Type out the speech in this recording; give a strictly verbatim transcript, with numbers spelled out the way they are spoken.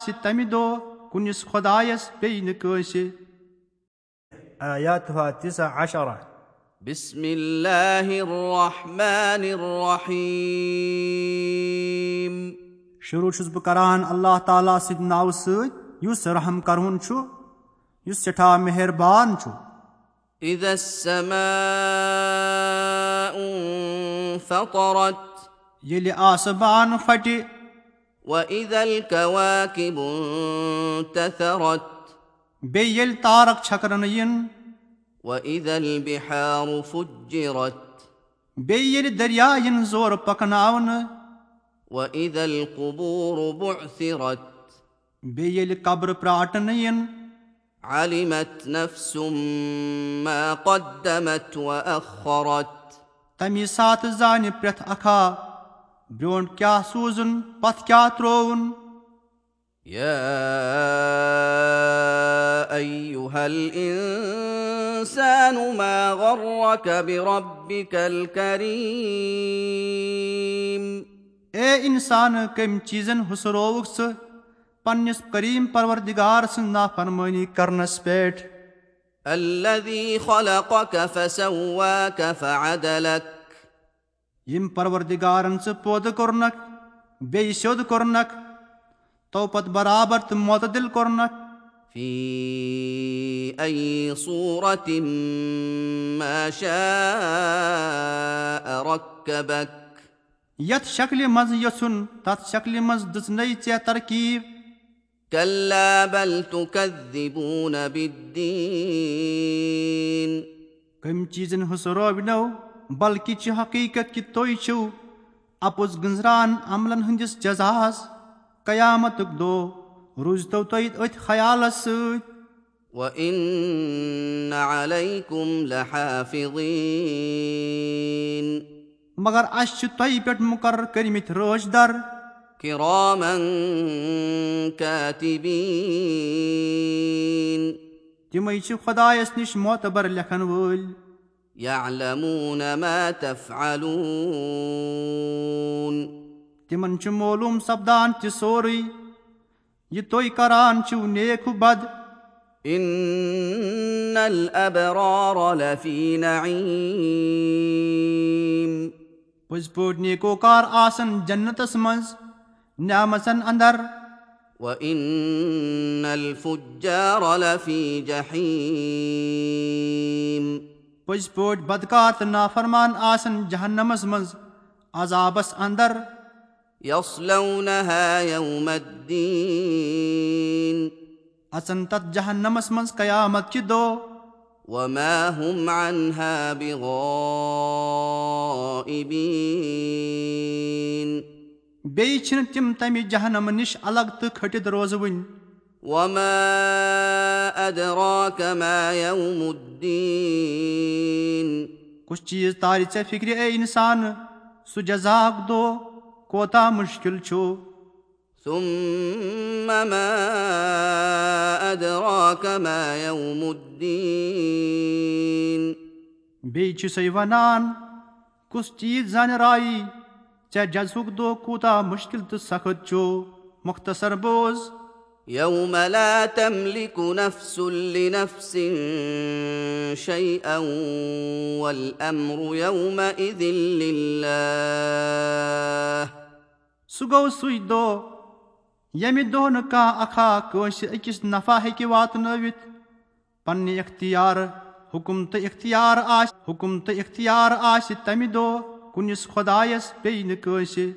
آسہِ تمہِ دۄہ کُنِس خۄدایس بیٚیہِ نہٕ کٲنٛسہِ۔ آياتها تسع عشرة. بسم الله الرحمن الرحيم. شروع چھُس بہٕ کران اللہ تعالیٰ سٕنٛدِ ناوٕ سۭتۍ، یُس رحم کرون چھُ، یُس سٮ۪ٹھاہ مہربان چھُ۔ إذا السماء انفطرت. ییٚلہِ آسمان پھٹہِ۔ وإذا الكواكب انتثرت. بیٚیہِ ییٚلہِ تارک چھکرنہٕ یِن۔ وإذا البحار فجرت. بیٚیہِ ییٚلہِ دریا یِن زورٕ پکناونہٕ۔ وإذا القبور بعثرت. بیٚیہِ ییٚلہِ قبرٕ پرٛاٹنہٕ یِن۔ علمت نفس ما قدمت وأخرت. تَمی ساتہٕ زانہِ پرٛٮ۪تھ اکھا برٛونٛٹھ کیٛاہ سوٗزُن، پتھ کیٛاہ ترٛووُن۔ يا أيها الإنسان ما غرك بربك الكريم. اے انسان، کٔمۍ چیٖزن ہُسرووُکھ ژٕ پننِس کریم پروردگار سٕنٛز نافرمٲنی کرنس پٮ۪ٹھ؟ الذي خلقك فسواك فعدلك. ییٚمۍ پروردگارن ژٕ پٲدٕ کوٚرنکھ، بیٚیہِ سیوٚد کوٚرنکھ، تو پتہٕ برابر تہٕ معتدل کوٚرنکھ۔ في أي صورة ما شاء ركبك. یتھ شکلہِ منٛز یژھُن، تتھ شکلہِ منٛز دِژنَے ژےٚ ترکیب۔ كلا بل تكذبون بالدين. کٔمۍ چیٖزن ہُسروونو، بلکہِ چھِ حقیٖقت کہِ تُہۍ چھِو اپُز گٔنزران عملن ہٕنٛدِس جزاہس۔ قیامتُک دۄہ روٗزتو تُہۍ أتھۍ خیالس سۭتۍ۔ وإن عليكم لحافظين. مگر اَسہِ چھِ تۄہہِ پٮ۪ٹھ مُقرر کٔرمٕتۍ رٲچھ در۔ كراما كاتبين. تِمَے چھِ خۄدایَس نِش معتبر لیکھن وٲلۍ۔ يعلمون ما تفعلون. تِمَن چھُ معلوٗم سپدان تہِ سورُے، یہِ تُہۍ کران چھِو نیک و بد۔ إن الأبرار لفي نعيم. پٔزۍ پٲٹھۍ نیکوکار آسن جنتس منٛز، نعمژن اندر۔ وإن الفجار لفي جحيم. پٔزۍ پٲٹھۍ بدکار تہٕ نافرمان آسن جہنمس منٛز، عذابس اندر۔ يصلونها يوم الدين. اژن تتھ جہنمس منٛز قیامت کہِ دۄہ۔ وما هم عنها بغائبين. بیٚیہِ چھِنہٕ تِم تمہِ جہنمہٕ نِش الگ تہٕ کھٔٹِتھ روزوٕنۍ۔ وما أدراك ما يوم الدين. کُس چیٖز تارِ ژےٚ فِکرِ، اے اِنسان، سُہ جزاہُک دۄہ کوتاہ مُشکِل چھُ؟ ثم ما أدراك ما يوم الدين. بیٚیہِ چھُ سُے وَنان، کُس چیٖز زانہِ رایی ژےٚ جزہُک دۄہ کوٗتاہ مُشکِل تہٕ سخت چھُ؟ مختصر بوز۔ يوم لا تملك نفس لنفس شيئا والأمر يومئذ لله. سُہ گوٚو سُے دۄہ، ییٚمہِ دۄہ نہٕ کانٛہہ اکھا کٲنٛسہِ أکِس نفع ہیٚکہِ واتنٲوِتھ۔ پننہِ اختیار، حُکُم تہٕ اختیار آسہِ، حُکُم تہٕ اختیار آسہِ تمہِ دۄہ کُنِس خۄدایس بیٚیہِ نہٕ کٲنٛسہِ۔